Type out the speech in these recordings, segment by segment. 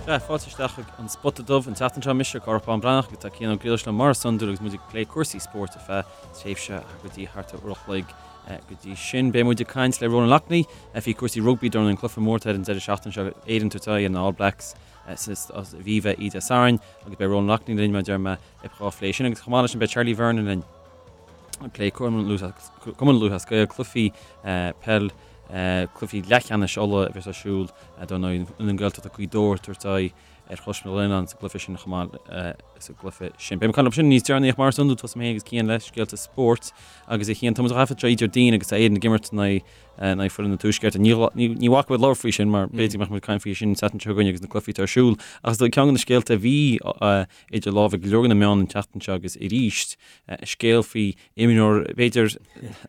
Sea, fáilte isteach chuig An Spota Dubh an tseachtain seo. Mise Cárthach Bán Breathnach agus tá Cian Ó Griallais liom mar is iondúil agus muid ag plé cúrsaí spóirt ar feadh tréimhse go dtí thart ar uair a chloig. Go dtí sin, beidh muid ag caint le Ronan Loughney faoi cúrsaí rugbaí dar ndóigh an cluiche mór atá ar an deireadh seachtaine seo, Éirinn ag tabhairt aghaidh ar na All Blacks sa Aviva Oíche Dé Sathairn agus beidh Ronan Loughney linn mar a deir mé dhá phlé sin agus chomh maith leis sin beidh Charlie Vernon linn ag plé Cumann Lúthchleas Gael, cluichí peil, cluichí leathcheannais Uladh a bheas ar siúl dar ndóigh na Gaeltachta Gaoth Dobhair ag tabhairt aghaidh ar Chois na Gleann sa gcluiche sin chomh maith sa gcluiche sin. Beidh mé ag caint leo sin níos deireanaí ach mar is iondúil tosóidh mé féin agus Cian le scéalta spóirt agus a Chian tá muid á thaifead seo Déardaoin agus tá Éirinn ag imirt in aghaidh foireann an Tuaiscirt. Ní bhacfaidh muid labhairt faoi sin mar b'fhéidir go mbeadh muid ag caint faoi sin an tseachtain seo chugainn agus na cluichí atá ar siúl ach is dóigh ceann de na scéalta a bhí idir lámha ag go leor de na meáin an tseachtain seo agus arís scéal faoi imreoir b'fhéidir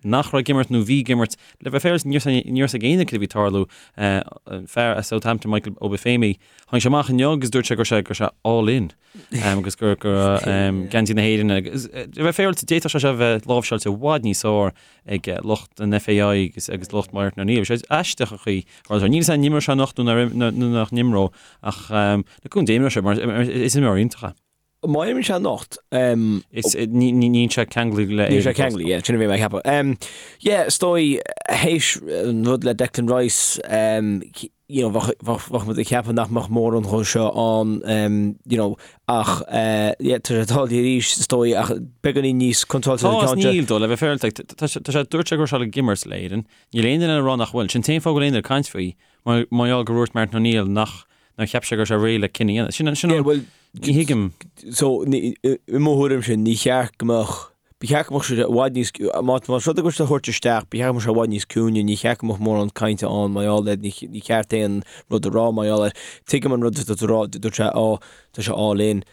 nach raibh ag imirt nó bhí ag imirt le bheith féaráilte ní raibh a fhios ag éinne cad a bhí ag tarlú. An fear as Southampton Michael Obafemi tháinig sé amach inniu agus dúirt sé go raibh sé go raibh sé all in agus gur go raibh geansaí na hÉireann agus le bheith féaráilte d'fhéadfadh sé seo a bheith láimhseáilte i bhfad níos fearr ag lucht an FAI agus agus lucht Martin O'Neill. Bhí sé aisteach an chaoi a raibh sé. Níl a fhios agam an imreoidh sé anocht nó nó nach n-imreoidh ach le cúnamh Dé imreoidh sé mar is imreoir iontach é. Má imríonn sé anocht. Is níl sé ceanglaithe le Níl sé ceanglaithe, yeah, sin a bhí mé ag ceapadh. Yeah, is dóigh, théis an rud le Declan Rice, you know, bheadh muid ag ceapadh nach mbeadh mórán dhó seo ann, you know, ach yeah, tá sé tarlaithe arís, is dóigh, ach beagáinín níos contráilte an ceann seo. Tá is níl dó, le bheith féaráilte, tá sé, dúirt sé go raibh sé ag imirt le Éirinn, níl aon duine ag rá nach bhfuil, sin an t-aon fáth go bhfuil aon duine ag caint faoi, mar gheall gur dhúirt Martin O'Neill nach nár cheap sé go raibh sé réidh le cinneadh a dhéanamh. Sin, sin an, bhuel, ní thuigim. So, ní, i mo thuairimse, ní cheart go mbeadh, ba cheart go mbeadh sé i bhfad níos, má, más rud é go bhfuil sé a thabhairt isteach, ba cheart go mbeadh sé i bhfad níos ciúine, ní cheart go mbeadh mórán cainte ann mar gheall air, ní, ní cheart aon rud a rá mar gheall air. Tuigim an rud atá tú a rá, dúirt sé, ó, tá sé all in.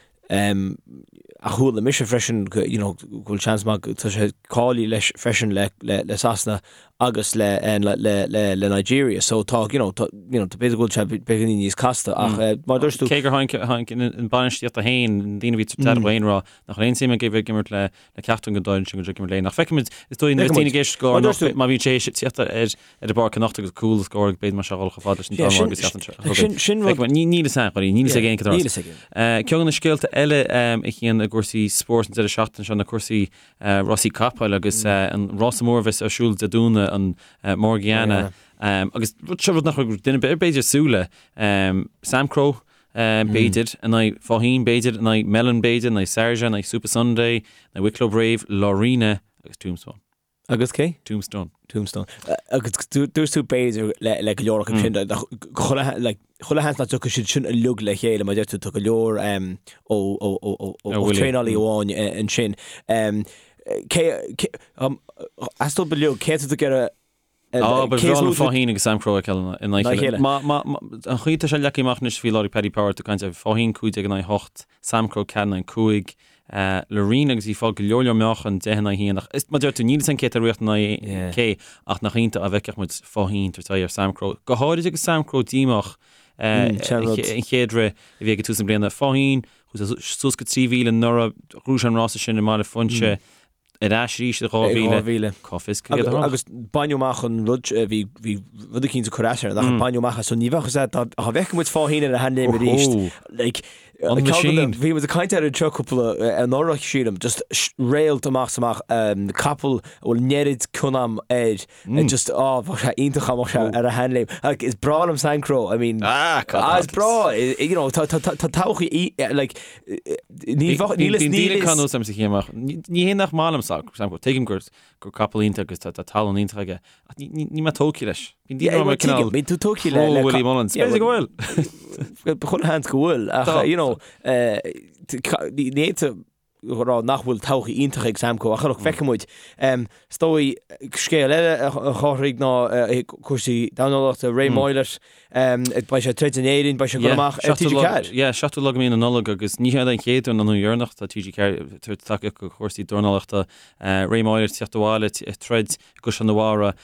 Ach chuala mise freisin go, you know, go bhfuil seans maith go, tá sé cáilithe leis freisin le, le, le Sasana agus le, le, le, le, le Nigeria. So tá, you know, tá, you know, tá b'fhéidir go bhfuil sé beagáinín níos casta ach mar a dúirt tú. Cé gur tháinig, tháinig an bainistíocht féin, na daoine a bhí tar féin rá nach raibh aon suim aige bheith ag imirt le, le ceachtar den dá fhoireann sin go dtí ag imirt le Éirinn. Ach feicfimid, is dóigh, nuair a bhíonn daoine ag éisteacht go leor má bhíonn sé tíocht ar ar an bpáirc anocht agus cúl a scóráil b'fhéidir mar seo dhul chomh fada leis an dá agus seachtain seo chugainn. Sin rud. Níl fhios againn, níl fhios ag aon cad Níl fhios againn. Ceann de na scéalta eile a Chian i gcúrsaí spóirt an deireadh seachtaine seo na cúrsaí rásaí capaill agus an rása mór a bheas ar siúl Dé Domhnaigh an Morgiana agus rud seo rud nach raibh duine ar bith b'fhéidir ag súil le Samcro b'fhéidir in aghaidh Faugheen b'fhéidir in aghaidh Melon b'fhéidir in aghaidh Sarja in aghaidh Supasundae in aghaidh Wicklow Brave Laurina agus Tombstone. Agus cé? Tombstone. Tombstone. Agus dúirt tú b'fhéidir le le go leor acu sin chuile like chuile sheans nach dtiocfaidh siad sin uilig le chéile mar deir tú tá go leor ó ó ó ó ó traenálaí amháin ansin. Cé cé as dóibh uilig cé atá tú ag iarraidh Á, ba bhreá liom Faugheen agus Samcro a fheiceáil in aghaidh a chéile. Má, má, má, an chaoi atá sé leagtha amach anois faoi láthair ag Paddy Power, tú ag caint ar Faugheen 15 in aghaidh 8, Samcro 4 in aghaidh 5, Laurina agus í ag fáil go leor leor meáchan 10 in aghaidh 1 ach is, mar deir tú, níl fhios againn cé atá ag rith in aghaidh cé ach nach iontach dá bhfeicfeadh muid Faugheen tabhairt aghaidh ar Samcro. Go háirid agus Samcro díomách an chéad rith a bhí ag tús na bliana. Faugheen, chuaigh suas go 3,000 anuraidh, ghnóthaigh sé an rása sin i mBaile Phúinse. Ar ais arís i 2000. Cá bhfios céard a tharla? Agus baineadh amach an rud, bhí bhí rud eicínt ag cur as air, nach baineadh amach as, so ní bheadh fhios agat, dá bhfeicfeadh muid Faugheen ar a sheanléim arís, like, An machine. Bhí muid ag caint air anseo cúpla anuraidh, sílim, just réalt amach is amach, capall a bhfuil an oiread cion agam air, just, á, bheadh sé iontach dá mbeadh sé ar a sheanléim. Like, is breá liom Samcro, I mean, Ah, ah, is breá, you know, tá tá tá tá todhchaí, like, ní bheadh, níl fhios, níl fhios. Bíonn daoine ag amach. Ní hé nach maith liom Samcro, tuigim gur gur capall iontach agus tá tá tallann iontach aige, ach ní ní níl mé tógtha leis. Bíonn daoine ag rá cineál Bíonn tú tógtha le le Willie Mullins. B'fhéidir go bhfuil. Chuile sheans go bhfuil, ach, you know, ní fhéadfá a rá nach bhfuil todhchaí iontach ag Samcro ach look, feicfidh muid. Is dóigh, scéal eile a Chárthaigh ná cúrsaí dornálaíochta, Ray Moylette, beidh sé ag troid in Éirinn, beidh sé ag dul amach ar TG4. Yeah, 7ú lá de mhí na Nollag agus ní hé an chéad uair ná an deireanach tá TG4 ag tabhairt tacaíocht do chúrsaí dornálaíochta. Ray Moylette ag teacht abhaile ag troid i gCaisleán an Bharraigh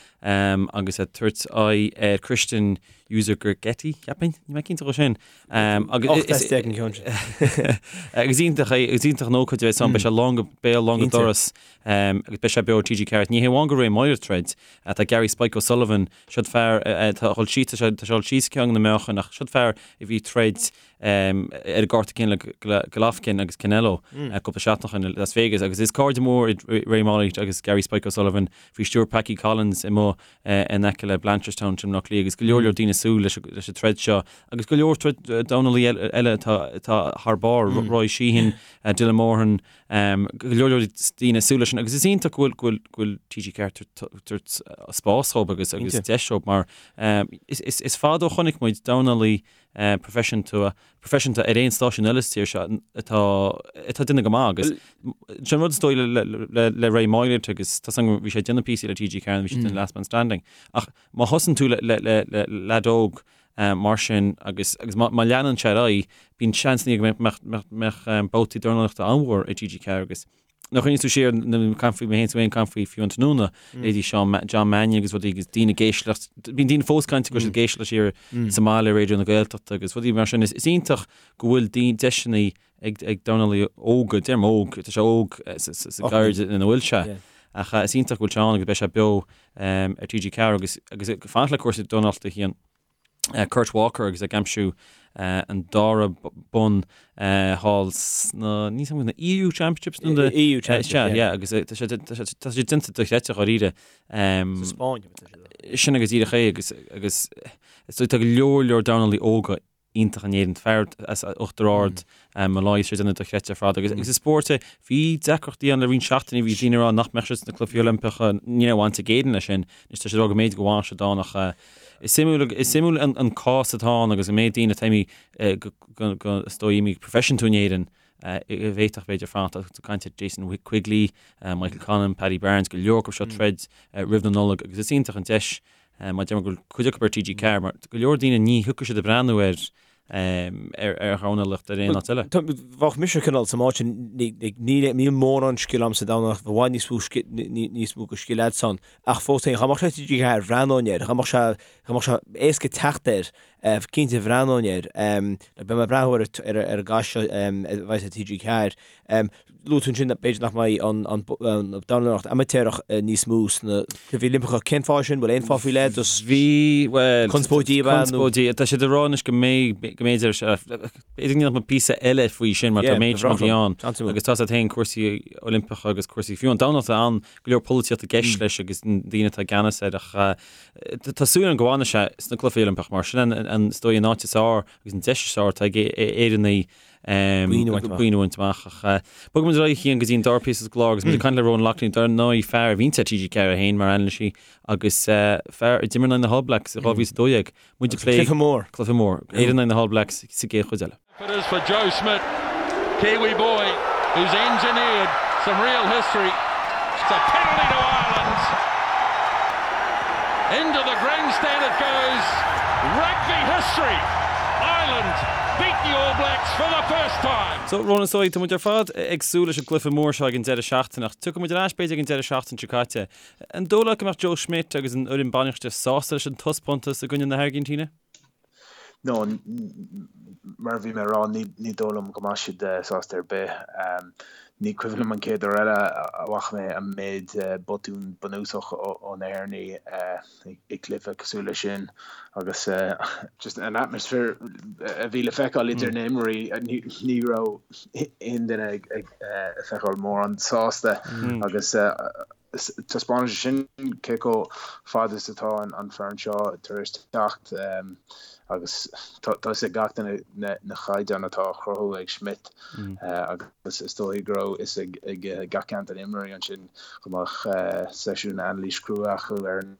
agus ag tabhairt aghaidh ar Christian. Euzogergeti, cheapfainn, níl mé cinnte dhó sin. Agus is an ceann sin. Agus iontach é, agus iontach an ócáid a bheas ann, beidh sé lán go béal, lán go doras, agus beidh sé beo ar TG4. Ní hé amháin go Ray Moylette ag troid, tá Gary Spike O'Sullivan, siod fear atá ag dul síos, tá sé ag dul síos ceann na meáchain, ach siod fear a bhí ag troid ar an gcárta céanna le Golovkin agus Canelo cúpla seachtain ó shin i Las Vegas agus is cairde mór iad Ray Moylette agus Gary Spike O'Sullivan faoi stiúir Packie Collins amuigh in aice le Blanchardstown i mBaile Átha Cliath agus go leor leor daoine ag súil leis an troid seo agus go leor troid dornálaí eile atá thar barr, Roy Sheehan, Dylan Moran, go leor leor daoine ag súil leis sin agus is iontach go bhfuil go bhfuil TG4 tabhairt spás dhóibh agus agus deis dhóibh mar is fada ó chonaic muid dornálaí proifisiúnta proifisiúnta ar aon stáisiún eile sa tír seo atá atá ag déanamh go maith agus sin an rud is dóigh le le le Ray Moylette agus tá san bhí sé ag déanamh píosaí le TG4 bhí sé ag déanamh Last Man Standing ach má thosaíonn tú le le le le leaid óg mar sin agus agus má má leanann sé ar aghaidh bíonn seans go mbeadh mbeadh mbeadh babhtaí dornálaíochta an-mhór ag TG4 agus Nuair a chuimhníonn tú siar ag caint faoi mé féin is tú féin ag caint faoi fiú an tráthnóna, leithéidí Seán John Mannion agus rudaí agus daoine ag éisteacht, bíonn daoine fós ag caint go bhfuil siad ag éisteacht siar sa mbaile Raidió na Gaeltachta agus rudaí mar sin. Is iontach go bhfuil daoine deiseanna ag ag dornálaí óga, deirim óg, tá sé óg sa sa gcaird ina bhfuil sé. Ach is iontach go bhfuil sé ann agus beidh sé beo ar TG4 agus agus ag fanacht le cúrsaí dornálaíochta a Chian. Kurt Walker agus ag aimsiú an dara bonn thall sna, níl a fhios agam, na EU Championships nó na EU Championships, yeah, agus tá sé tá sé déanta dochreidte dháiríre. Sa Spáinn, tá sé. Sin agus díreach é agus agus tá go leor leor dornálaí óga iontach in Éirinn, fear as Uachtar Ard, Molloy, tá sé ag déanamh dochreidte ar fad agus agus is spórt é, bhí deacrachtaí ann le roinnt seachtainí, bhí daoine ag rá nach mbeadh siad sna Cluichí Oilimpeacha, ní raibh baint ag Éirinn leis sin, anois tá siad ag rá go mb'fhéidir go bhfanfaidh siad ann ach Is suimiúil, is suimiúil an cás atá ann agus an méid daoine atá imithe go, go, is dóigh imithe proifisiúnta in Éirinn a bhféadfadh b'fhéidir fanacht. Tá tú ag caint ar Jason Quigley, Michael Conlan, Paddy Barnes, go leor acu seo ag troid roimh na Nollag agus is iontach an deis mar deirim go bhfuil cuid acu ar TG4 mar go leor daoine ní thiocfaidh siad ag breathnú ar ar dhornálaíocht ar aon áit eile. Bheadh mise cineál sa áit sin, níl mórán scil a'm sa dornálaíocht, i bhfad níos mó níos mó de scil a'dsan, ach fós féin, dá mbeadh sé TG4, bhreathnóinn air, dá mbeadh sé, dá mbeadh sé éasca teacht air, cinnte bhreathnóinn air. Beidh mé ag breathnú ar ar an gcath seo a bheas ar TG4. Luaigh tú ansin b'fhéidir nach mbeidh an dornálaíocht amaitéarach níos mó sna Cluichí Oilimpeacha. Cén fáth sin? Bhfuil aon fáth faoi leith? Just Bhí, bhuel, conspóidí ab ea nó? Conspóidí. Tá siad ag rá anois go mbeidh, go mb'fhéidir, b'fhéidir go ndéanfadh muid píosa eile faoi sin mar tá méid sin rudaí ann. Agus tá a fhios agat féin cúrsaí Oilimpeacha agus cúrsaí fiú an dornálaíocht ann, go leor polaitíocht i gceist leis agus na daoine atá i gceannas air ach tá súil agam go bhfanfaidh sé sna Cluichí Oilimpeacha mar sin an, is dóigh an áit is fearr agus an deis is fearr atá ag Éireannaigh Boinn a bhaint amach. Ach bogfaidh muid ar aghaidh a Chian go dtí an dara píosa sa gclár agus muid ag caint le Ronan Loughney, dar ndóigh fear a bhíonns ar TG4 féin mar anailísí agus fear a d'imir in aghaidh na hAll Blacks i 2012. Muid ag plé Cluiche mór. Cluiche mór. Éire in aghaidh na hAll Blacks sa gcéad chuid eile. It is for Joe Schmidt, Kiwi boy who's engineered some real history. It's a penalty to Ireland. Into the grandstand it goes. Rugby history. Ireland beat the All Blacks for the first time. So, Ronan, is dóigh, tá muid ar fad ag súil leis an gcluiche mór seo ag an deireadh seachtaine ach tiocfaidh muid ar ais b'fhéidir ag an deireadh seachtaine seo caite. An dóigh leat go mbeadh Joe Schmidt agus an fhoireann bainistíochta sásta leis an taispeántas i gcoinne na hAirgintíne? No, mar a bhí mé a rá, ní dóigh liom go mbeidh siad sásta ar bith. Ní cuimhin liom an chéad uair eile a bhfaca mé an méid botún bunúsach ó na hÉireannaigh i gcluiche cosúil leis sin agus just an atmaisféar a bhí le feiceáil idir na himreoirí, ní raibh aon duine ag feiceáil mórán sásta agus Taispeánann sé sin cé chomh fada is atá an foireann seo tar éis teacht agus tá fhios ag gach duine na caighdeáin atá á chruthú ag Schmidt agus is dóigh go raibh fhios ag gach ceann de na imreoirí ansin go mbeadh seisiún anailís crua acu ar an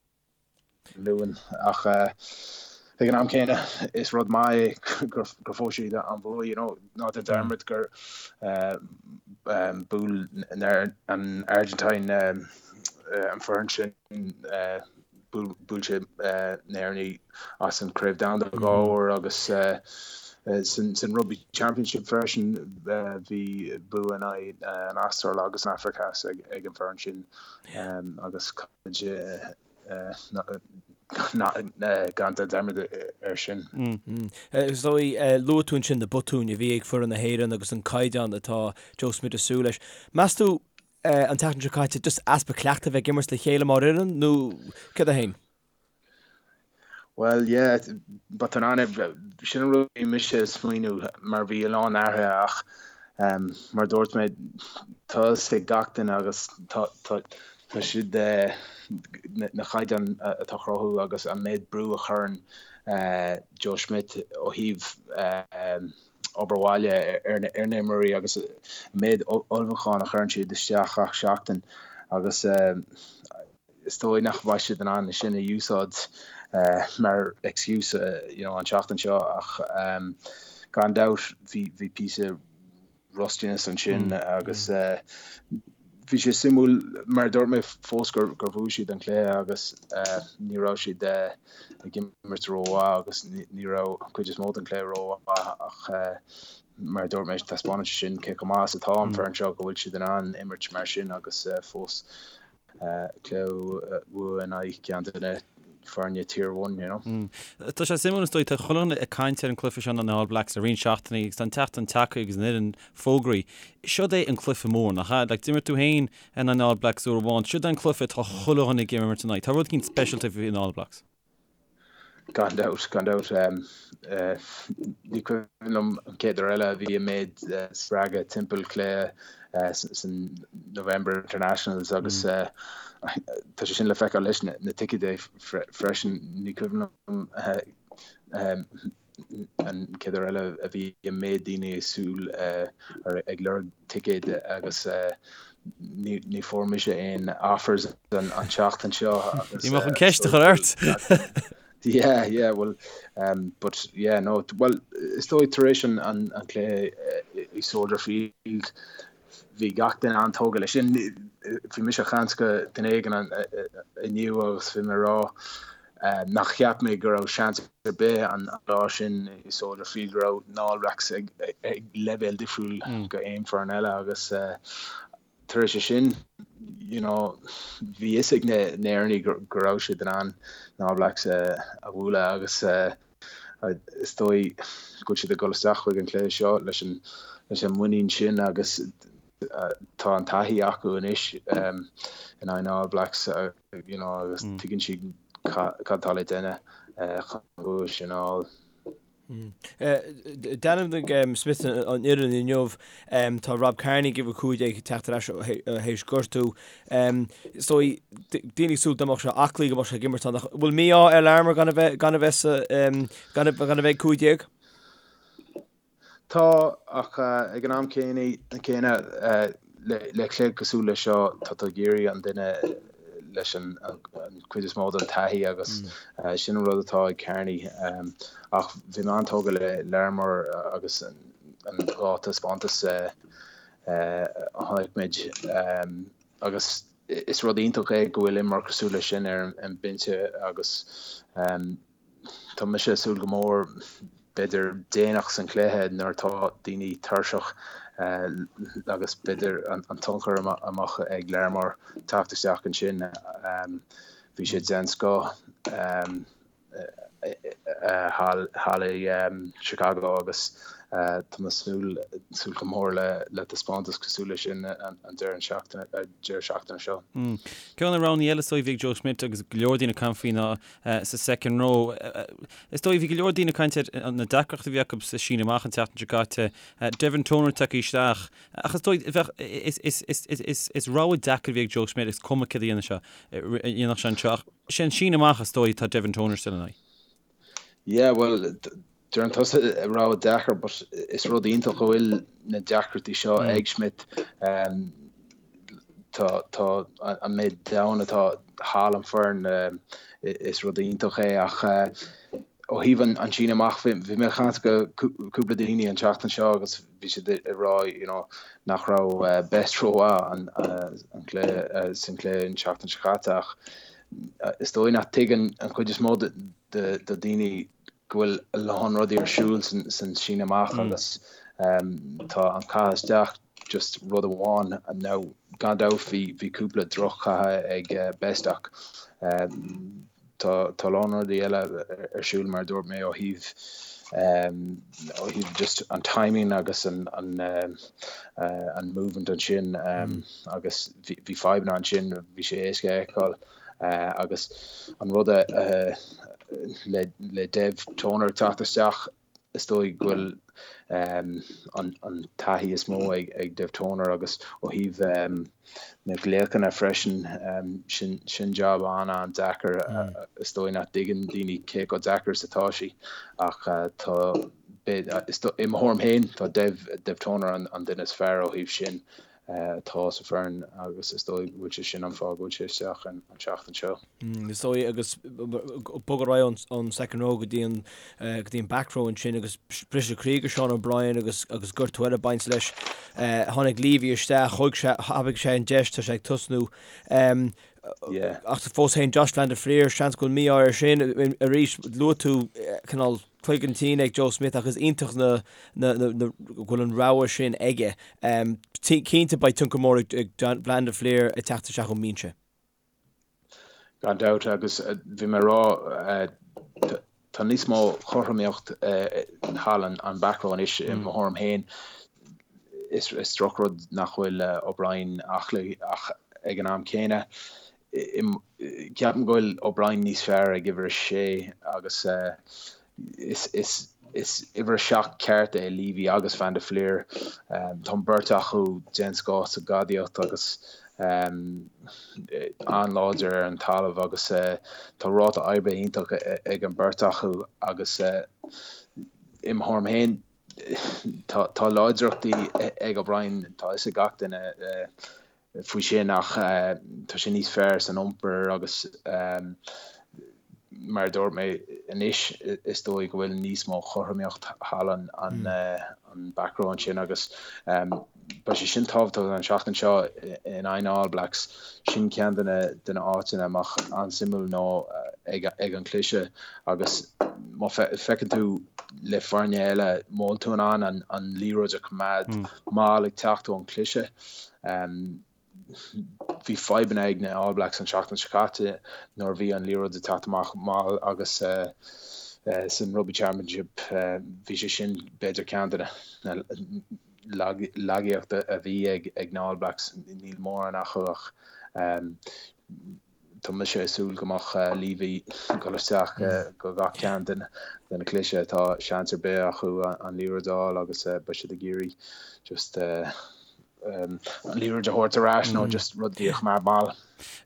Luan ach ag an am céanna is rud maith é gur fuair siad an bua, you know, ná déan dearmad gur bhuail an Argentine an foireann sin, bhuail sé na hÉireannaigh as an Craobh Domhanda dhá uair agus san Rugby Championship freisin bhí bua in aghaidh an Astráil agus an Afraic Theas ag an bhfoireann sin agus. Gan déan dearmad air sin. Is dóigh, luaigh tú ansin na botúin a bhí ag foireann na hÉireann agus an caighdeán atá Joe Schmidt ag súil leis. Meas tú an tseachtain seo caite just easpa cleachtaidh a bheith ag imirt le chéile mar fhoireann nó céard é féin? Bhuel, yeah, botún an, sin an rud a bhí mise ag smaoineamh mar bhí a lán athruithe ach mar a dúirt mé, tá a fhios ag gach duine agus tá Tá siad, na caighdeáin atá á chruthú agus an méid brú a chuireann Joe Schmidt ó thaobh obair bhaile ar na himreoirí agus an méid ullmhúcháin a chuireann siad isteach gach seachtain agus is dóigh nach mbeidh siad in ann sin a úsáid mar excuse you know an tseachtain seo ach gan dabht bhí píosa rustiness ansin agus bhí sé suimiúil mar a dúirt mé fós gur bhuaigh siad an cluiche agus ní raibh siad ag imirt rómhaith agus ní raibh an chuid is mó den chluiche rómhaith ach mar a dúirt mé taispeánann sé sin cé chomh maith is atá an foireann seo go bhfuil siad in ann imirt mar sin agus fós cluiche a bhuachan in aghaidh ceann de na foirne Tier One, you know. Tá sé suimiúil is dóigh, tá chuile dhuine ag caint ar an cluiche seo na All Blacks le roinnt seachtainí agus tá an tseachtain tagtha agus an fhoireann fógraithe. Seod é an cluiche mór, nach ea? Like, d'imir tú féin in aghaidh na All Blacks uair amháin. Seod é an cluiche atá chuile dhuine ag imirt in aghaidh. Tá rud éicint speisialta faoi na All Blacks. Gan dabht, gan dabht. Ní cuimhin liom an chéad uair eile a bhí an méid spreagadh timpeall cluiche san November Internationals agus tá sé sin le feiceáil leis na ticéid freisin. Ní cuimhin liom an chéad uair eile a bhí an méid daoine ag súil ag lorg ticéid agus ní fuair mise aon offers an tseachtain seo. Ní mbeadh an ceist a chur ort! Yeah, yeah, well, um, but yeah, no, well, is dóigh tar éis an, an, an cluiche i Soldier Field, bhí gach duine an-tógtha leis sin. Bhí mise ag caint le duine éigin inniu agus bhí mé ag rá nach cheap mé go raibh seans ar bith an lá sin i Soldier Field go raibh na All Blacks ag leibhéal difriúil go aon foireann eile agus tar éis sin you know bhí fhios ag na hÉireannaigh go raibh siad in ann na All Blacks a bhualadh agus is dóigh go bhfuil siad ag dul isteach chuig an cluiche seo leis an leis an muinín sin agus tá an taithí acu anois in aghaidh na All Blacks you know agus tuigeann siad cad atá le déanamh chun an bua sin a fháil. D'ainmnigh Smith an fhoireann inniu. Tá Rob Kearney ag uimhir 15 ag teacht ar ais théis gortú. Is dóigh, daoine ag súil dá mbeadh sé aclaí go mbeadh sé ag imirt ann ach bhfuil mí-ádh ar Larmour gan a bheith gan a bheith sa gan a bheith ag 15? Tá, ach ag an am céanna, le cluiche cosúil leis seo, tá tú ag iarraidh an duine leis an chuid is mó den taithí agus sin an rud atá ag Kearney. Ach bhí mé an-tógtha le Larmour agus an dá taispeántas a chonaic muid agus is rud iontach é go bhfuil imreoir cosúil leis sin ar an mbinse agus Tá mise ag súil go mór, b'fhéidir déanach san chluiche nuair atá daoine tuirseach agus b'fhéidir an tionchar a mbeadh ag Larmour teacht isteach ansin. Bhí sé den scoth thall i Chicago agus tá mé ag súil go mór le taispeántas cosúil leis sin an deireadh seachtaine seo. Ceann de na roghanna eile is dóigh a bhí ag Joe Schmidt agus go leor daoine ag caint faoi ná sa second row. Is dóigh, bhí go leor daoine ag caint ar na deacrachtaí a bhí acu sa síneadh amach an tseachtain seo caite. Devin Toner tagtha isteach. Ach is dóigh, bheadh, is, is, is, is, is, is rogha deacair a bhí ag Joe Schmidt, is cuma céard a dhéanfadh sé, a dhéanfadh sé anseo. Ach sé an síneadh amach is dóigh atá Devin Toner still in aghaidh. Yeah, well, deireann tusa rogha deacair but is rud iontach go bhfuil na deacrachtaí seo ag Schmidt. Tá tá an méid domhan atá thall an foireann is rud iontach é ach ó thaobh an an síneadh amach bhí bhí mé ag caint le cúpla daoine an tseachtain seo agus bhí siad ag rá you know nach raibh Best rómhaith an an cluiche san cluiche an tseachtain seo caite ach is dóigh nach tuigeann an chuid is mó de de daoine go bhfuil a lán rudaí ar siúl san síneadh amach agus tá an caitheamh isteach just rud amháin. Now gan dabht bhí bhí cúpla droch-chaitheamh ag Best ach. Tá a lán rudaí eile ar siúl mar a dúirt mé ó thaobh ó thaobh just an timing agus an an an movement ansin agus bhí fadhbanna ansin, bhí sé éasca a fheiceáil agus an rud a le le Dev Toner teacht isteach Is dóigh go bhfuil an taithí is mó ag Dev Toner agus ó thaobh na nglaochanna freisin, sin jab an-an-deacair. Is dóigh nach dtuigeann daoine cé chomh deacair is atá sé ach tá, i mo thuairim féin, tá Dev Toner an duine is fearr ó thaobh sin. atá sa foireann agus is dóigh go bhfuil sé sin an fáth go bhfuil sé isteach an tseachtain seo. Is dóigh agus bogadh ar aghaidh ón second row go dtí an go dtí an back row ansin agus briseadh croí do Sean O'Brien agus agus gortú eile ag baint leis. Tháinig Leavy isteach, thóg sé thapaigh sé an deis, tá sé ag tosnú. Ach fós féin Josh van der Flier, seans go bhfuil mí-ádh air sin. Arís luaigh tú cineál cloigeann tinn ag Joe Schmidt ach is iontach na go bhfuil an rogha sin aige. Cinnte beidh tionchar mór ag Van der Flier ag teacht isteach ón mbinse. Gan dabht agus bhí mé ag rá tá níos mó chothromaíocht thall an back row anois i mo thuairim féin. Is drochrud nach bhfuil O'Brien aclaí ach ag an am céanna Ceapaim go bhfuil O'Brien níos fearr ag uimhir a sé agus is uimhir a 7 ceart é Leavy agus Van der Flier. Tá an beirt acu den scoth sa gcadaíocht agus an-láidir ar an talamh agus tá ráta oibre iontach ag an beirt acu agus i mo thuairim féin tá láidreachtaí ag O'Brien, tá fhios ag gach duine. faoi sin ach tá sé níos fearr san iompar agus mar a dúirt mé anois is dóigh go bhfuil níos mó chothromaíocht thall an an back row ansin agus beidh sé sin tábhachtach an seachtain seo in aghaidh na All Blacks. Sin ceann de na de na áiteanna a mbeadh an-suimiúil nó ag ag an cliseadh agus má feiceann tú le foirne eile má bhfuil tú in ann an an liathróid a choimeád mall ag teacht ón cliseadh Bhí fadhbanna ag na All Blacks an tseachtain seo caite nuair a bhí an liathróid ag teacht amach mall agus san Rugby Championship bhí sé sin b'fhéidir ceann de na lagaíochta a bhí ag na All Blacks. Níl mórán acu ach Tá mise ag súil go mbeadh Leavy ag dul isteach go gach ceann de na cliseadh atá seans ar bith acu an liathróid a fháil agus beidh siad ag iarraidh just an liathróid a thabhairt ar ais nó just rudaí a choimeád mall.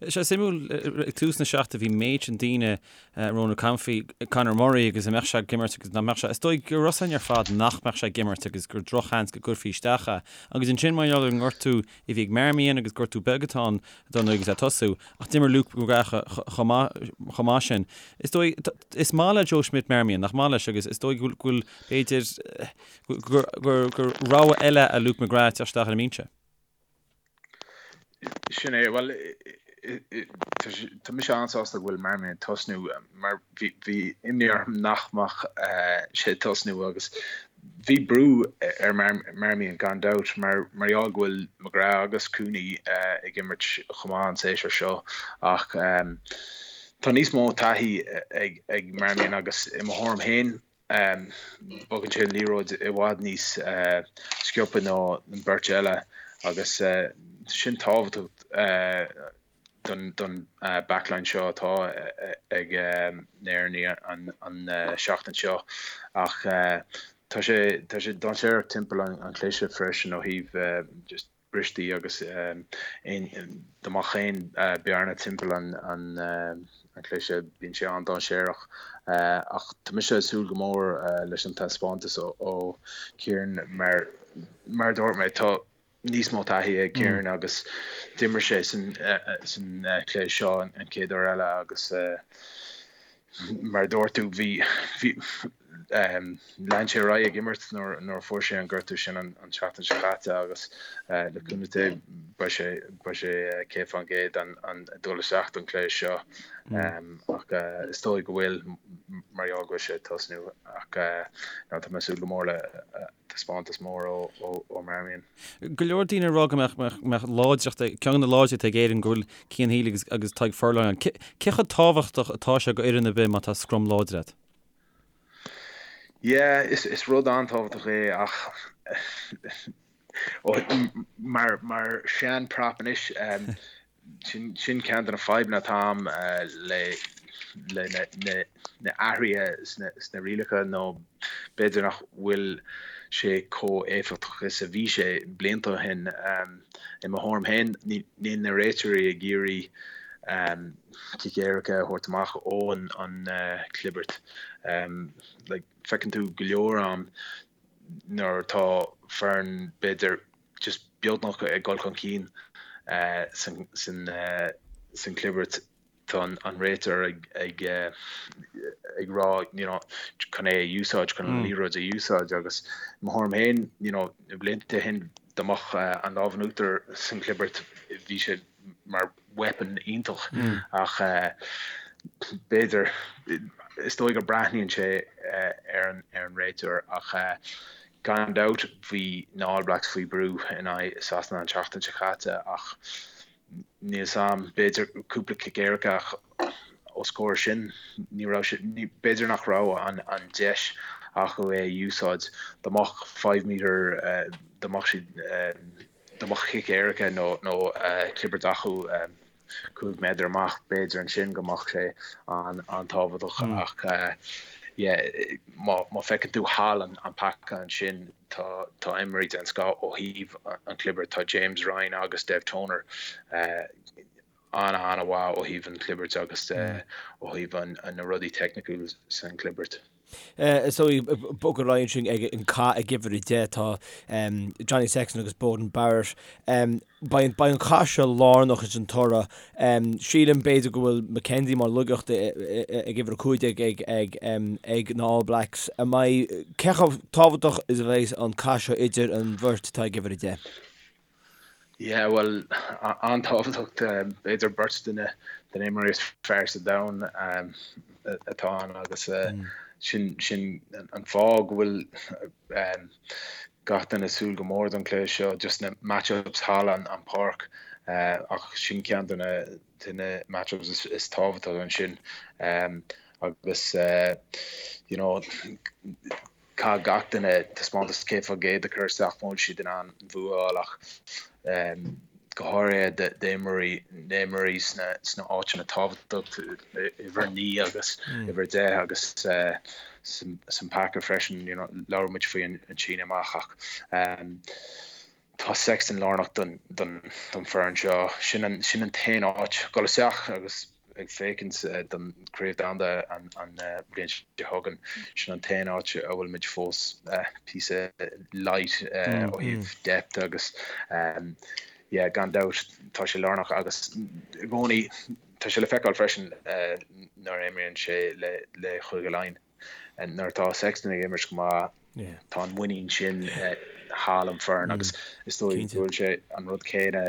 Sé suimiúil ag tús na seachtaine bhí méid sin daoine Ronan O'Gara faoi Conor Murray agus an mbeadh sé ag imirt agus nach mbeadh sé. Is dóigh go raibh a fhios againn ar fad nach mbeadh sé ag imirt agus gur drochsheans go gcuirfí isteach é. Agus ansin mar gheall ar an ngortú a bhí ag Marmion agus gortú beag atá ann don agus é ag tosú, ach d'imir Luke McGrath chomh maith sin. Is dóigh, is maith le Joe Schmidt Marmion, nach maith leis, agus is dóigh go bhfuil, b'fhéidir, gur rogha eile é Luke McGrath teacht isteach ar an mbinse. Sin é, bhuel, tá mise an-sásta go bhfuil Marmion ag tosnú mar bhí imní orm nach mbeadh sé ag tosnú agus Bhí brú ar Marmion gan dabht mar gheall go bhfuil McGrath agus Cooney ag imirt chomh maith an séasúr seo ach tá níos mó taithí ag Marmion agus i mo thuairim féin bogann sé an liathróid i bhfad níos sciobtha ná an beirt eile agus sin tábhachtach. don backline seo atá ag na hÉireannaigh an seachtain seo ach tá sé tá sé dainséarach timpeall an chliseadh freisin ó thaobh just bristí agus aon dá mbeadh aon bearna timpeall an an chliseadh bíonn sé an-dainséarach ach tá mise ag súil go mór leis an taispeántas ó Kieran mar mar a dúirt mé tá níos mó taithí ag Kieran agus d'imir sé san chluiche seo an chéad uair eile agus mar a dúirt tú bhí bhí lean sé ar aghaidh ag imirt nuair nuair a fuair sé an gortú sin an tseachtain seo caite agus le cúnamh Dé beidh sé beidh sé 100% an an dul isteach don chluiche seo ach is dóigh go bhfuil mar gheall go bhfuil sé ag tosnú ach tá mé ag súil go mór le. taispeántas mór ó Marmion. Go leor daoine ag rá go mbeadh láidreacht, ceann de na láidreachtaí ag Éirinn go bhfuil Cian Healy agus Tadhg Furlong ann. Cé chomh tábhachtach atá sé go fhoireann ar bith má tá scrum láidir agat? Yeah, is rud an-tábhachtach é ach mar mar sean prop anois sin sin ceann de na fadhbanna atá agam le le na na na athruithe sna sna rialacha nó b'fhéidir nach bhfuil sé chomh éifeachtach is a bhí sé blianta ó shin. I mo thuairim féin níl na réiteoirí ag iarraidh cic éirice a thabhairt amach ó an an clibirt. Like feiceann tú go leor am nuair atá foireann b'fhéidir just beagnach ag dul chun cinn san san clibirt tá an réiteoir ag ag ag rá you know chun é a úsáid chun an liathróid a úsáid agus i mo thuairim féin you know na blianta ó shin dá mbeadh an lámh in uachtar san chlibirt bhí sé mar weapon iontach ach b'fhéidir, is dóigh go breathnaíonn sé ar an ar an réiteoir ach gan dabht bhí na All Blacks faoi brú in aghaidh Sasana an tseachtain seo caite ach níl 'fhios a'm, b'fhéidir cúpla cic éirice ach os comhair sin ní raibh sé, b'fhéidir nach raibh an an deis acu é a úsáid dá mbeadh five metre dá mbeadh siad dá mbeadh cic éirice nó clibirt acu 5 méadar amach, b'fhéidir ansin go mbeadh sé an-tábhachtach ach yeah má feiceann tú thall an paca ansin tá tá imreoirí den scoth ó thaobh an chlibirt, tá James Ryan agus Dev Toner an-an-mhaith ó thaobh an chlibirt agus ó thaobh na rudaí teicniúil san chlibirt. Is dóigh, bog ar aghaidh ansin ag an cath ag uimhir 10 tá Johnny Sexton agus Beauden Barrett. Beidh an cath seo lárnach ins an toradh. Sílim b'fhéidir go bhfuil McKenzie mar laigeacht ag uimhir 15 ag na All Blacks. An mbeidh, cé chomh tábhachtach is a bheidh an cath seo idir an bheirt atá ag uimhir 10? Yeah, bhuel, an-tábhachtach, b'fhéidir beirt de na imreoirí is fearr sa domhan atá ann agus sin sin an fáth go bhfuil gach duine ag súil go mór don chluiche seo, just na match-ups thall an páirc ach sin ceann de na de na match-ups is tábhachtaí ansin agus you know Caithfidh gach duine taispeántas 100% a chur isteach mura bhfuil siad in ann an bua a fháil ach go háirithe d'imreoirí na himreoirí sna sna áiteanna tábhachtach, uimhir 9 agus uimhir 10 agus san paca freisin. You know, labhair muid faoi an síneadh amach ach tá Sexton lárnach don don don foireann seo. Sin an sin an t-aon áit dul isteach agus ag féachaint don Chraobh Domhanda an bhliain seo chugainn, sin an t-aon áit a bhfuil muid fós píosa light ó thaobh depth agus yeah gan dabht tá sé lárnach agus i gcónaí tá sé le feiceáil freisin nuair a imríonn sé le le Chúige Laighean. Nuair atá Sexton ag imirt go maith tá an muinín sin thall an foireann agus is dóigh go bhfuil sé an rud céanna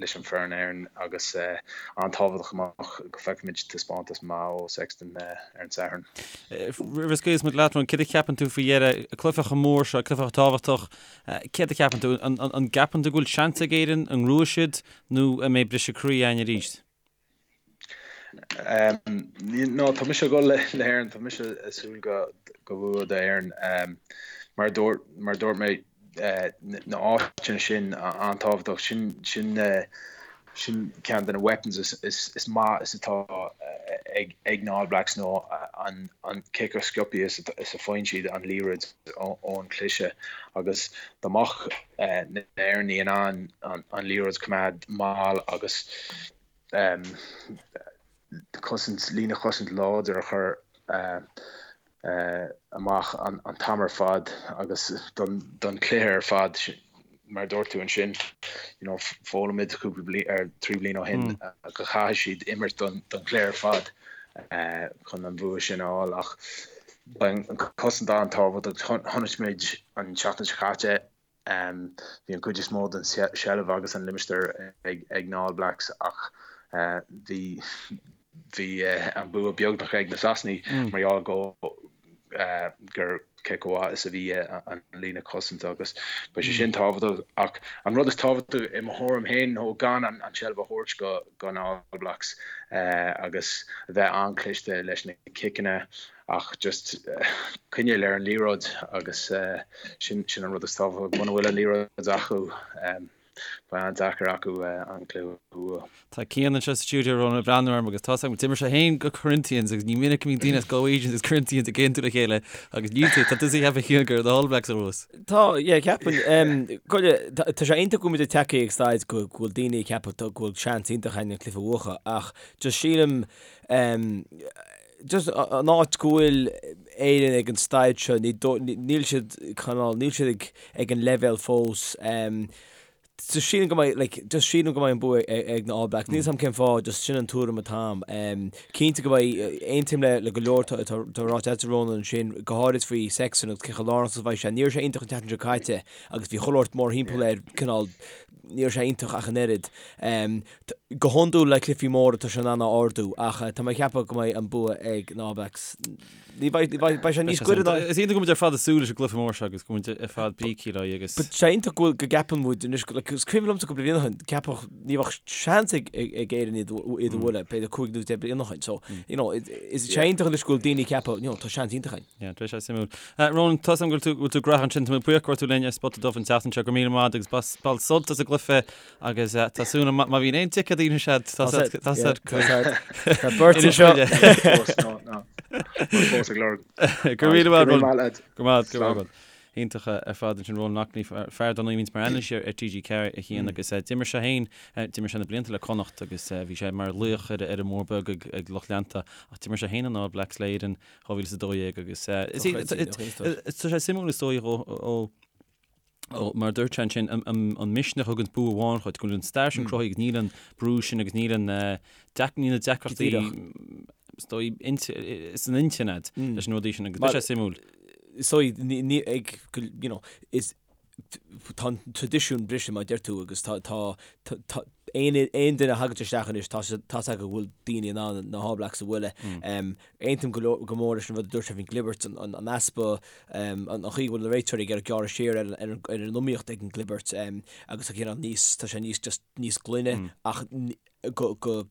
leis an foireann Éireann agus an-tábhachtach amach go bhfeicfimid taispeántas maith ó Sexton ar an Satharn. Roimh a scaoilfeas muid leat, céard a cheapann tú faoi dheireadh, cluiche chomh mór seo, cluiche chomh tábhachtach, céard a cheapann tú, an gceapann tú go bhfuil seans ag Éirinn, an ngnóthóidh siad nó an mbeidh briseadh croí againn arís? No, tá mise ag dul le hÉirinn, tá mise ag súil go go bua d'Éirinn. Mar a dúirt mar a dúirt mé na áiteanna sin an-tábhachtach, sin sin sin ceann de na weapons is is is maith is atá ag ag na All Blacks nó an an cé chomh sciobtha is is a faigheann siad an liathróid ón cliseadh agus dá mbeadh na hÉireannaigh in ann an liathróid a choimeád mall agus cosaint, líne chosaint láidir a chur amach an t-am ar fad agus don chluiche ar fad. Mar a dúirt tú ansin, you know, foghlaim muid cúpla bliain, ar 3 bliain ó shin go chaithfidh siad imirt don chluiche ar fad chun an bhua sin a fháil ach beidh an cosaint an-tábhachtach. Chonaic muid an tseachtain seo caite Bhí an chuid is mó den seilbh agus an limistéar ag na All Blacks ach bhí bhí an bua beagnach ag na Sasanaigh mar gheall go. gur cé chomh maith is a bhí an líne cosanta agus beidh sé sin tábhachtach ach an rud is tábhachtaí i mo thuairim féin nó gan an tseilbh a thabhairt go go na All Blacks agus a bheith an-chliste leis na ciceanna ach just coinneáil ar an liathróid agus sin sin an rud is tábhachtaí muna bhfuil an liathróid acu. Beidh an-deacair acu an cluiche a bhua. Tá Cian anseo sa stiúideo Ronan ag breathnú orm agus tá 's agam d'imir sé féin go Corinthians agus ní minic a bhíonn daoine as Galwegians agus Corinthians ag aontú le chéile agus níl tú, tá tusa ag ceapadh Cian gur na All Blacks a bhuas. Tá, yeah, ceapaim, go, tá sé iontach go bhfuil muid ag teacht ag staid go bhfuil daoine ag ceapadh go bhfuil seans iontach againn an cluiche a bhuachan ach just sílim, just an áit go bhfuil Éirinn ag an staid seo, níl siad cineál, níl siad ag ag an leibhéal fós. Just sílim go mbeidh, like, just sílim go mbeidh an bua ag na All Blacks. Níl 's a'm cén fáth, just sin an tuairim atá a'm. Cinnte go mbeidh, aontaím le le go leor atá atá ráite agat Ronan ansin, go háirid faoi Sexton agus cé chomh lárnach is a bheidh sé. Ní raibh sé iontach an tseachtain seo caite agus bhí chuile shórt mórthimpeall air, cineál, ní raibh sé iontach ach an oiread. Go hiondúil le cluichí móra tá sé in ann a ardú ach tá mé ag ceapadh go mbeidh an bua ag na All Blacks. Ní bheidh, beidh sé níos gaire ná. Is iontach go bhfuil muid ar fad ag súil leis an gcluiche mór seo agus go bhfuil muid ar fad bígthe le agus. But sé iontach go bhfuil, go gceapann muid anois, like, is cuimhin liomsa cúpla bliain ó shin, ceapadh ní bheadh seans ag ag Éirinn iad iad a bhualadh, b'fhéidir 5 nó 10 bliain ó shin. So, you know, is sé iontach anois go bhfuil daoine ag ceapadh, you know, tá seans iontach againn. Yeah, beidh sé suimiúil. Ronan, tá 's agam go bhfuil tú, go bhfuil tú gnóthach ansin, tá mé buíoch go raibh tú linn ar Spota Dubh an tseachtain seo, go raibh míle maith agat agus bain sult as an gcluiche Agus tá súil agam má bhíonn aon ticéad in úsáid tá Tá beirt anseo. Fós ag lorg. Go raibh míle maith agat. Go maith, go raibh maith. Iontach ar fad ansin Ronan Loughney, fear dar ndóigh a bhíonns mar anailísí ar TG4 a Chian agus d'imir sé féin, d'imir sé na blianta le Connacht agus bhí sé mar laoch ar an mBóthar Beag ag lucht leanta ach d'imir sé féin an All Blacks le Éirinn 2012 agus tá sé suimiúil is dóigh ó Ó, mar a dúirt sé ansin, an misneach a thugann bua amháin dhuit, go bhfuil an stair sin cruthaithe agus níl an brú sin agus níl an, níl na deacrachtaí, is dóigh, san intinn agat leis na rudaí sin agus tá sé suimiúil. Is dóigh, ní, ag, you know, is, tá an traidisiún briste mar a deir tú agus tá, tá, tá, aon, aon duine a thagann isteach anois, tá, tá 's acu go bhfuil daoine in ann na All Blacks a bhualadh. Aontaím go leor, go mór leis an rud a dúirt sé faoin gclibirt, an, an easpa, an chaoi go bhfuil na réiteoirí ag iarraidh gearradh siar ar an iomaíocht ag an gclibirt agus tá cineál níos, tá sé níos just níos glaine ach go, go,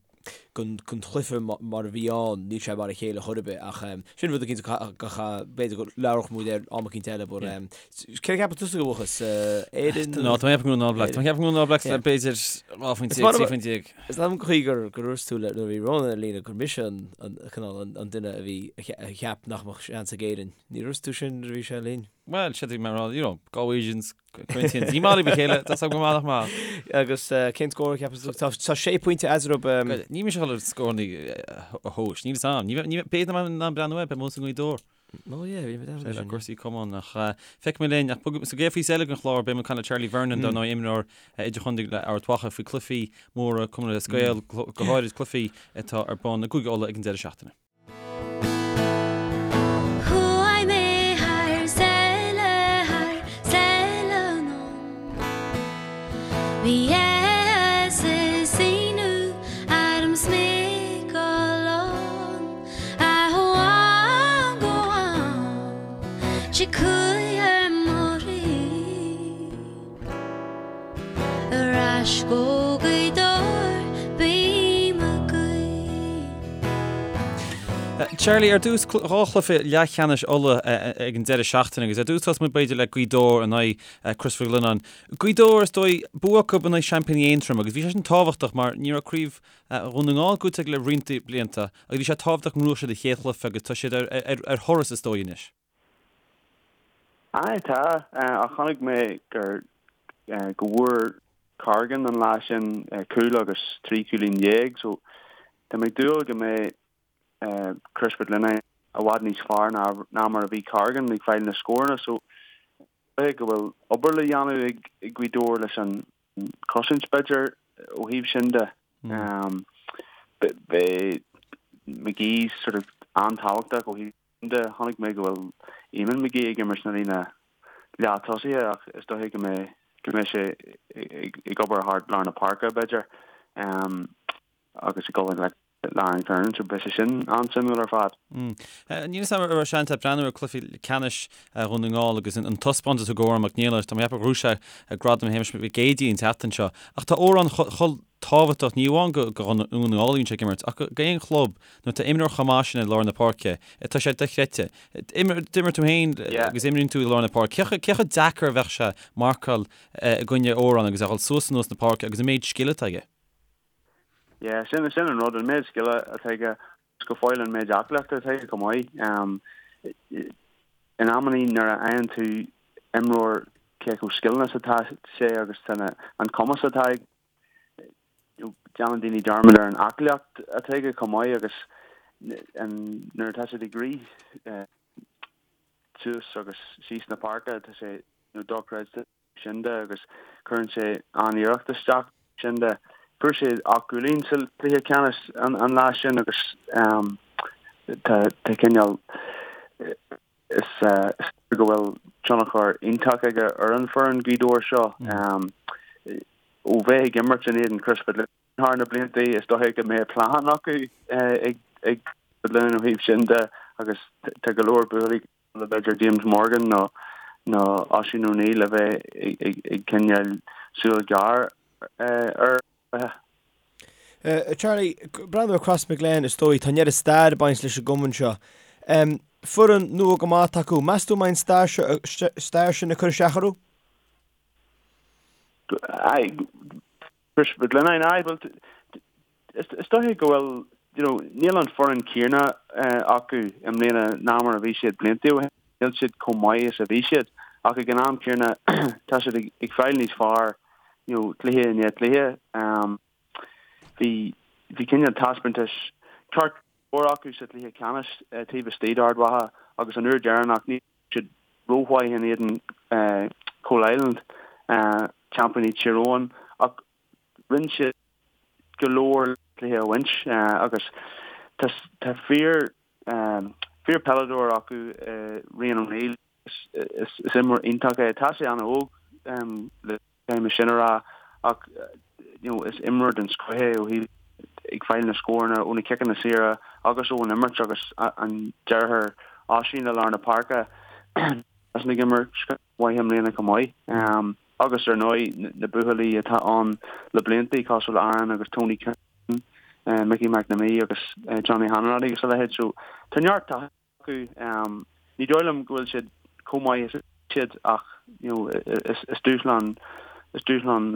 don chluiche mar a bhí ann níl sé mar a chéile chor ar bith ach sin rud eicínt go b'fhéidir go labhródh muid air am eicínt eile but cé a cheapann tusa go bhuafas Éirinn? No, tá mé ag ceapadh go mbeidh na All Blacks, tá mé ag ceapadh go mbeidh na All Blacks le b'fhéidir 12 phointe, 13 phointe. Is maith liom an chaoi gur gur dhúirt tú le nuair a bhí Ronan ar líne gur mise an an cineál an an duine a bhí a cheap nach mbeadh seans ag Éirinn. Ní dhúirt tú sin nuair a bhí sé linn. Bhuel, sé mé rá, you know, Galwegians, Corinthians, ní maith libh a chéile, tá go maith nach maith. Agus cén scór a cheapas tú? Tá tá sé pointe eatarthu. Ní mise a dhul ar scóranna a thomhas, níl 'fhios a'm. Ní b'fhéidir nach mbeidh mé in ann breathnú air, beidh mé sa nGaoth Dobhair. Oh yeah, bhí mé le cúrsaí cumann ach feicfidh mé linn ach sa gcéad phíosa eile den chlár beidh muid ag caint le Charlie Vernon dar ndóigh imreoir idirchontae le Ard Mhacha faoi cluichí móra Cumann Lúthchleas Gael go háirid cluichí atá ar bun i gCúige Uladh ag an deireadh seachtaine. Chuaigh mé thar sáile, thar sáile anonn. Bhí áthas is ionadh orm 's mé ag dul ann. Charlie, ar dtús, dhá chluiche leathcheannais Uladh ag an deireadh seachtaine agus ar dtús tosóidh muid b'fhéidir le Gaoth Dobhair in aghaidh Crois Mhic Lionnáin. Gaoth Dobhair, is dóigh, bua acu in aghaidh seaimpíní Aontroim agus bhí sé sin tábhachtach mar ní raibh craobh Dhún na nGall buaite acu le roinnt blianta agus bhí sé tábhachtach go mbuafadh siad an chéad chluiche agus tá siad ar thuras is dóigh anois. Aye tá, ach chonaic mé gur go bhfuair Corrigan an lá sin cúl agus 13 cúilín so tá mé ag dúil go mbeidh Crois Mhic Lionnáin i bhfad níos fearr ná mar a bhí Corrigan ag fáil na scóranna so go bhfuil obair le dhéanamh ag Gaoth Dobhair leis an cosaint b'fhéidir ó thaobh sin de. Beidh McGee sort of an-tábhachtach ó thaobh sin de. Chonaic mé go bhfuil Eamon McGee ag imirt sna líne leath tosaithe ach is dóiche go mbeidh go mbeidh sé ag obair thart lár na páirce b'fhéidir agus ag dul i ngleic. Le Aaron Kernan, so beidh sé sin an-suimiúil ar fad. Níl 'fhios a'm an raibh seans a'd breathnú ar cluiche ceannais Dhún na nGall agus an taispeántas a thug Odhrán Mac Niallais, tá mé ag ceapadh gur ghnóthaigh sé gradam Shéamais Mhic Géidigh an tseachtain seo. Ach tá Odhrán chomh tábhachtach, ní amháin do Dhún na nGall a bhíonn sé ag imirt, ach do aon chlub nuair atá imreoir chomh maith sin i lár na páirce, tá sé dochreidte. D'imir tú féin agus imríonn tú i lár na páirce. Cé chomh deacair a bheadh sé marcáil i gcoinne Odhrán agus é a dhul suas anuas na páirce agus an méid scil atá aige? Yeah, sin, sin an rud, an méid scile atá aige, agus go fóill an méid aclaíochta atá aige chomh maith. In amannaí nuair a fhaigheann tú imreoir cé chomh scileanna is atá sé agus tá na, an cumas atá aige, déanann daoine dearmad ar an aclaíocht atá aige chomh maith agus an, nuair atá siad ag rith suas agus síos na páirce tá sé you know, dochreidte. sin de agus cuireann sé an-iarracht isteach sin de. Fuair sé 8 gcúilín sa chluiche ceannais an lá sin agus tá cineál is go bhfuil tionchar iontach aige ar an foireann Gaoth Dobhair seo. Ó bheith ag imirt in éadan Crois thar na blianta, is dóiche go mbeidh plean acu ag Crois ó thaobh sin de agus tá go leor buachaillí le b'fhéidir James Morgan nó nó Oisín O'Neill a bheith ag coinneáil súil ghearr air. Charlie, breathnú ar Crossmaglen is dóigh, tá an oiread stair ag baint leis an gcumann seo. Foireann nua go maith atá acu. Meas tú an mbeidh an stair seo, stair sin ag cur isteach orthu? Aye, Crois Mhic Lionnáin, aye, bhuel, is dóiche go bhfuil, you know, níl an foireann céanna acu i mbliana ná mar a bhí siad blianta ó shin, níl siad chomh maith is a bhí siad, ach ag an am céanna tá siad ag fáil níos fearr, you know, cluiche i ndiaidh cluiche. Bhí, bhí cineál taispeántais ceart go leor acu sa chluiche ceannais taobh istigh d'Ard Mhacha agus an uair dheireanach ní raibh siad rómhaith in éadan Coalisland, seaimpíní Thír Eoghain, ach rinne siad go leor cluiche a bhaint agus tá fíor fíor peileadóir acu Rian O'Neill is imreoir iontach é. Tá sé an-óg le Caithfidh mé sin a rá ach you know is imreoir den scoth é ó thaobh ag fáil na scóranna ó na ciceanna saora agus ón imirt agus an deartháir Oisín i lár na páirce is ag imirt mhaith i mbliana chomh maith. Agus ar ndóigh na buachaillí atá ann le blianta cosúil le Aaron agus Tony Kiernan, Mickey McNamee agus Johnny Hanratty agus a leithéid. So tá neart taithí acu. Ní dóigh liom go bhfuil siad chomh maith is a bhí siad ach you know is dúshlán is dúshlán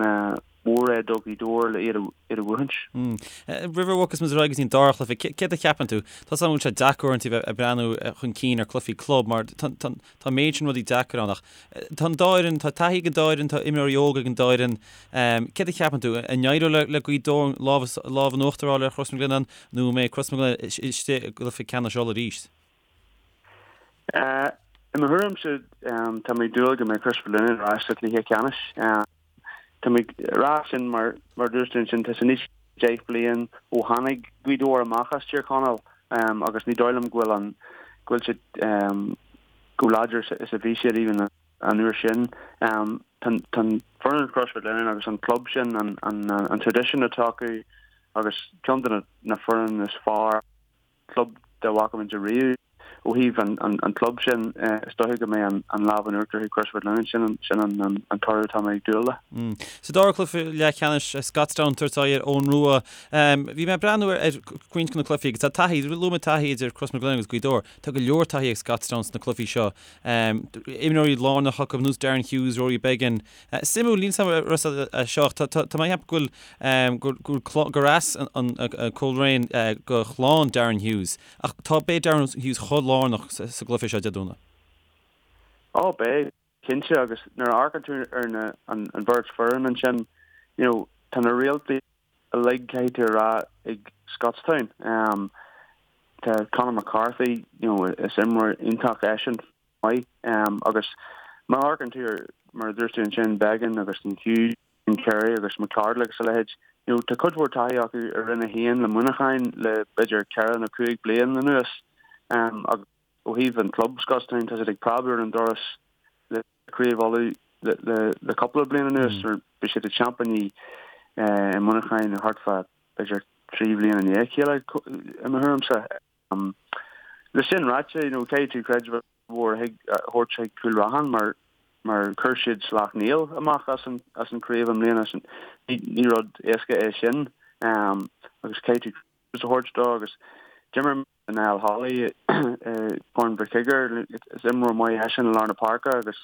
mór é do Ghaoth Dobhair le iad a bhuachaint. Roimh a bhogfas muid ar aghaidh go dtí an dara chluiche, céard a cheapann tú? Tá 's agam go bhfuil sé deacair uaireanta bheith ag breathnú chun cinn ar chluichí club mar tá an méid sin rudaí deacair ann ach tá an dá fhoireann, tá taithí ag an dá fhoireann, tá imreoirí óga ag an dá fhoireann. Céard a cheapann tú? An éireoidh le Gaoth Dobhair lámh in uachtar a fháil ar Chros na Glinneán nó an mbeidh Crois na Glinne istigh i gcluiche ceannais Uladh arís? I mo thuairimse, tá mé ag dúil go mbeidh Crois Mhic Lionnáin ar ais sa chluiche ceannais. Tá mé ag rá sin mar, mar a dúirt tú ansin, tá sé níos 10 bliain ó tháinig Gaoth Dobhair amach as Tír Chonaill agus ní dóigh liom go bhfuil an, go bhfuil siad chomh láidir is a bhí siad even an uair sin. Tá an foireann Crois Mhic Lionnáin agus an club sin, an traidisiún atá acu agus ceann de na foireann is fearr club dá bhfaca muid ariamh. Ó thaobh an club sin, is dóiche go mbeidh an lámh in uachtar ag Crois Mhic Lionnáin, sin an toradh atá mé ag dúil le. Sa dara cluiche leathcheannais, Scotstown ag tabhairt aghaidh ar Eoghan Rua. Bhí mé ag breathnú ar roinnt de na cluichí agus tá taithí, luaigh mé taithí idir Crois Mhic Lionnáin agus Gaoth Dobhair. Tá go leor taithí ag Scotstown sna cluichí seo. Imreoirí lárnacha acu ar nós Darren Hughes, Rory Beggan. Suimiúil, níl 's agam an raibh a fhios agat seo, tá mé ag ceapadh go bhfuil, gur as an Coleraine do chlann Darren Hughes, ach tá, beidh Darren Hughes chomh lárnach sa gcluiche seo Dé Domhnaigh. Ó beidh, cinnte, agus nuair a amharcann tú ar na, an bheirt foireann ansin, you know, tá na réaltaí uilig, caithfidh tú a rá, ag Scotstown. Tá Conor McCarthy, you know, is imreoir iontach eisean. maith. Agus má amharcann tú ar, mar a dúirt tú ansin, Beggan agus an Hughes, and Carey agus McArdle agus a leithéid, you know, tá cuid mhór taithí acu i Roinn 1 le Muineachán le b'fhéidir ceithre nó cúig bliain anuas. Agus ó thaobh an club Scotstown, tá siad ag preabadh ar an doras le Craobh Uladh le cúpla bliain anuas. Bhí siad ag seaimpíní i Muineachán thart fá b'fhéidir. 3 bhliain i ndiaidh a chéile i mo thuairimse. Le sin ráite, you know, caithfidh tú creideamh mhór a thabhairt chuig Cúil Raithin mar mar chuir siad Sleacht Néill amach as an as an craobh i mbliana. Ní ní rud éasca é sin agus caithfidh tú a thabhairt dó agus d'imir Niall Holly i Corn Mhic Uidhir, is imreoir maith eisean i lár na páirce agus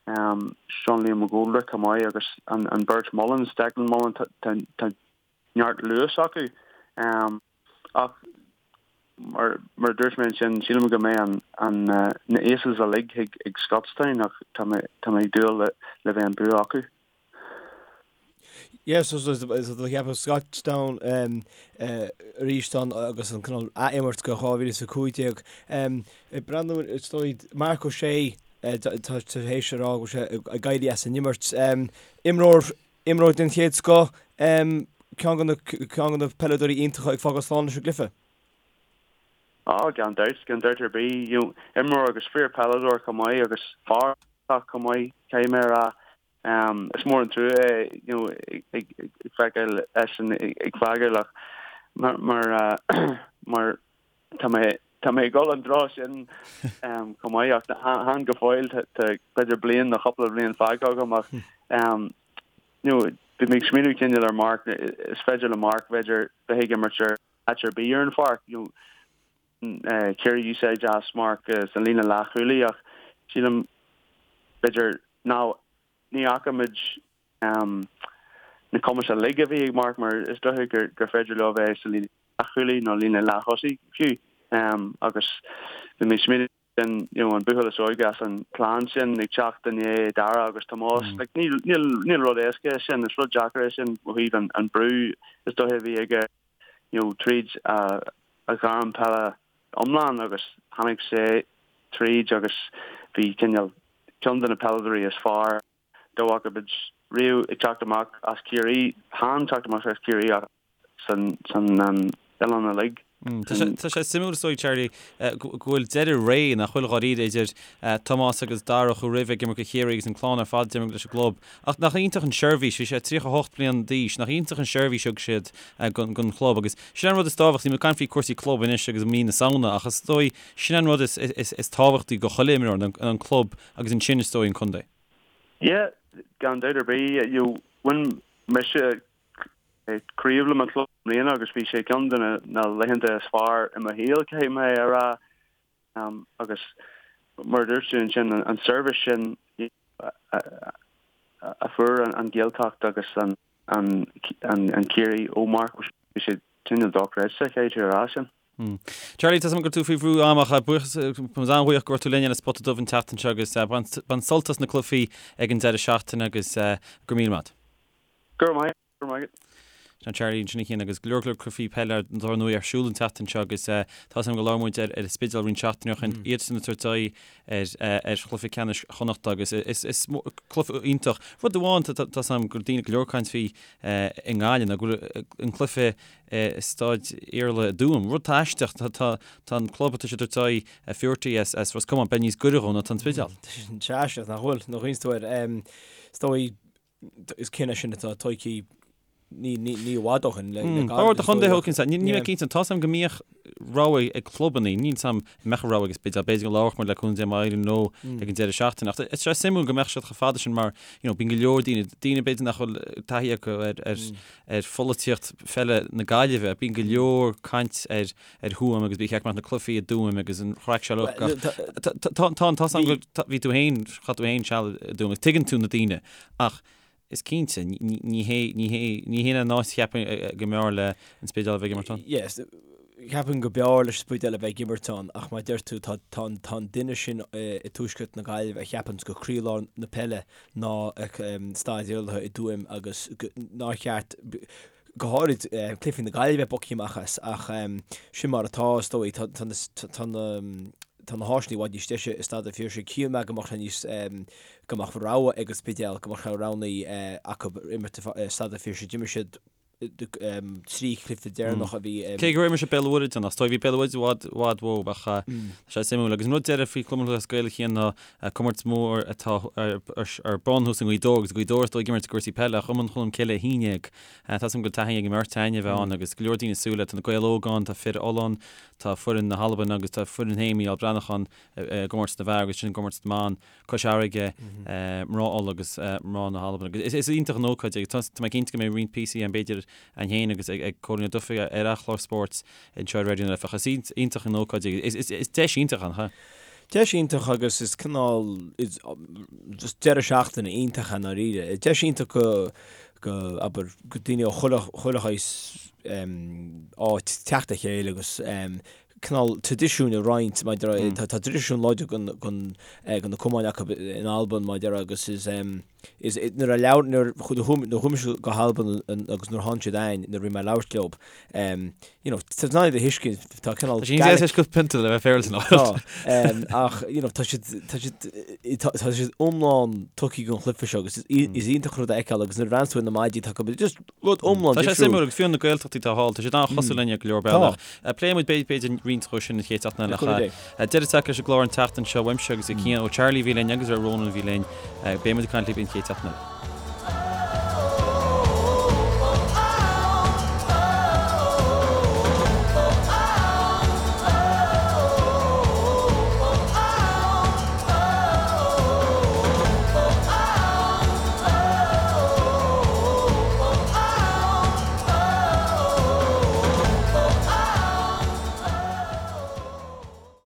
Sean Liam McGoldrick chomh maith agus an an beirt Mullins, Declan Mullins, tá tá neart luas acu. Ach mar mar a dúirt mé ansin, sílim go mbeidh an an na Aces uilig ag ag Scotstown ach tá mé tá mé ag dúil le le bheith an bua acu. Yes, so so so do cheapadh Scotstown arís ann agus an cineál ath-imirt go 2015. Ag breathnú is dóigh Marc O'Shea tá tar éis a rá go bhfuil sé ag éirí as an imirt. Imreoir Imreoir den chéad scoth, ceann de na ceann de na peileadóirí iontacha ag fágáil slán leis an gcluiche. Á, gan dabht, gan dabht ar bith. You know, imreoir agus fíor peileadóir chomh maith agus fear chomh maith, caithfidh mé a rá. Is mór an trua é, you know, ag feiceáil eisean ag fágáil ach mar mar mar tá mé tá mé ag dul an treo sin chomh maith ach chan go fóill tá b'fhéidir bliain nó cúpla bliain fágtha agam ach you know bhí mé ag smaoineamh cineál ar Mark is féidir le Mark b'fhéidir bheith ag imirt ar áit ar bith ar an pháirc you know Ciarraí úsáid as Mark sa líne leathchúlaí ach sílim b'fhéidir ná ní fhaca muid na cumais uilig a bhí ag Mark mar is dócha gur féidir leo bheith sa líne leathchúlaí nó líne leath-thosaigh fiú agus bhí mé ag smaoineamh sin you know an buachaill is óige as an clann sin ag teacht i ndiaidh Dara agus Tomás like níl níl níl rud éasca é sin is rud deacair é sin ó thaobh an an brú is dócha a bhí aige you know tríd a a ghairm peile iomlán agus tháinig sé tríd agus bhí cineál ceann de na peileadóirí is fearr dá bhfaca muid riamh ag teacht amach as Ciarraí, chan teacht amach as Ciarraí ach san oileán uilig. Tá sé suimiúil is dóigh, Charlie, go bhfuil deireadh ré, nach bhfuil dháiríre, idir Tomás agus Dara a chuaigh roimhe ag imirt do Chiarraí agus an clann ar fad ag imirt leis an gclub. Ach nach iontach an seirbhís, bhí sé 38 bliain d'aois, nach iontach an seirbhís a thug siad don chlub agus sin an rud is tábhachtaí, níl muid ag caint faoi cúrsaí club anois agus mí na Samhna ach is dóigh sin an rud is tábhachtaí do chuile imreoir, an club agus ansin is dóigh an contae. Yeah, gan dabht ar bith. You know, bhain mise craobh le mo chlub i mbliana agus bhí sé ceann de na laethanta is fearr i mo shaol, caithfidh mé a rá. Agus mar a dúirt tú ansin, an seirbhís sin a fuair an Ghaeltacht agus an Ciarraí ó Mark, bhí sé cineál dochreidte, caithfidh tú a rá sin. Charlie, tá 's agam go bhfuil tú faoi bhrú ama ach buíochas, tá muid an-bhuíoch go raibh tú linn ar an Spota Dubh an tseachtain seo agus bain sult as na cluichí ag an deireadh seachtaine agus go raibh míle maith. Go raibh maith, go raibh maith agat. Sin Charlie ansin a Chian agus go leor go leor cluichí peile ar ndóigh ar siúl an tseachtain seo agus tá 's agam go labhair muid ar an Spidéal roinnt seachtainí ó shin, iadsan ag tabhairt aghaidh ar ar chluiche ceannais Chonnachta agus is is cluiche iontach. Rud amháin tá 's agam go daoine go leor caint faoi i nGaillimh ná go bhfuil an cluiche i Staid Iarlaithe i dTuaim. Rud atá aisteach, tá an club atá siad ag tabhairt aghaidh Fuerty as Ros Comáin, beidh níos gaire dhó ná tá an Spidéal. Tá sé aisteach nach bhfuil, nuair a chuimhníonns tú air. Is dóigh, is cinneadh sin atá tógtha ní i bhfad ó shin le gairid. Ba chóir do chontae thóg cinnte, níl mé cinnte, tá 's agam go mbíodh rogha ag clubanna, níl 's agam an mbeadh rogha ag an Spidéal, b'fhéidir go labharfadh muid le cúnamh Dé má éiríonn leo ag an deireadh seachtaine. Ach tá sé suimiúil go mbeadh siad chomh fada sin mar, you know, bíonn go leor daoine, daoine b'fhéidir nach bhfuil taithí acu ar ar ar pholaitíocht pheile na Gaillimhe. Bíonn go leor caint ar ar Thuaim agus ba cheart go mbeadh na cluichí i dTuaim agus an chraic seo uilig ach tá tá tá 's agam go bhí tú féin, chaith tú féin seal i dTuaim agus tuigeann tú na daoine ach is cinnte ní ní hé ní hé ní hé an áit cheapfainn go mb'fhearr le an Spidéal a bheith ag imirt ann. Yes, ceapaim go mb'fhearr leis an Spidéal a bheith ag imirt ann ach mar a deir tú tá tá tá an duine sin i dtuaisceart na Gaillimhe a cheapanns gur croílár na peile ná Staid Iarlaithe i dTuaim agus nár cheart, go háirid, cluichí na Gaillimhe bogtha amach as ach sin mar atá, is dóigh. Tá na tá na háiseanna i bhfad níos deise i Staid an Phiarsaigh. Shíl mé go mbeadh sé níos, go mbeadh rogha ag an Spidéal, go mbeadh sé roghnaí acu imirt i Staid an Phiarsaigh. D'imir siad. 3 chluiche deireanach a bhí. Cé go raibh mise Béal Mhuirthead ann, is dóigh bhí Béal Mhuirthead i bhfad, bhfad uathu ach tá sé suimiúil. Agus an rud deiridh faoi Chumann Lúthchleas Gael a Chian ná comórtas mór atá ar bun thuas i nGaoth Dobhair agus Gaoth Dobhair is dóigh ag imirt i gcúrsaí peile ach Iomann Cholm Cille 11. Tá 'fhios agam go bhfuil taithí ag an mbeirt againn a bheith ann agus go leor daoine ag súil le, tá na Gaeil Óga ann, tá fir Uladh ann, tá foireann na hAlban agus tá foireann féin Mícheál Breathnach ann i gcomórtas na bhfear agus sin i gcomórtas na mban. Cois Fharraige, mná Uladh agus mná na hAlban. Agus is iontach an ócáid é. Tá mé cinnte go mbeidh roinnt píosaí ann b'fhéidir againn féin agus ag Cóilín Ó Dufaigh ar a chlár spóirt anseo ar Raidió na Life. Ach is iontach an ócáid é. Is deis iontach ann, cha? Deis iontach agus is cineál just deireadh seachtaine iontach i ndáiríre. Deis iontach go go abair go daoine ó chuile chuile shaghas áit teacht le chéile agus cineál traidisiúin a roinnt maidir le, tá traidisiún láidir den de na cumainn acu in Albain maidir agus is is nuair a labhair nuair a chuaigh mise go hAlbain agus nuair a tháinig siad againn nuair a bhí mé ag labhairt leo you know tá siad a thuiscint tá cineál Tá siad níos pionta le bheith féaráilte ná Tá ach you know tá siad tá siad tá siad iomlán tugtha don chluiche seo agus is iontach rud a fheiceáil agus nuair a bhreathnaíonn tú ar na maidí tá acu just Rud iomlán difriúil. Tá sé suimiúil agus fiú na Gaeltachtaí atá thall, tá siad an-chosúil linn ar go leor bealach. Pléifidh muid b'fhéidir roinnt dhó sin an chéad seachtain eile. Ach deireadh tagtha leis an gclár an tseachtain seo uaimse agus ó Cian, ó Charlie a bhí linn agus ó Ronan a bhí linn. Beidh muid ag caint libh an chéad seachtain eile.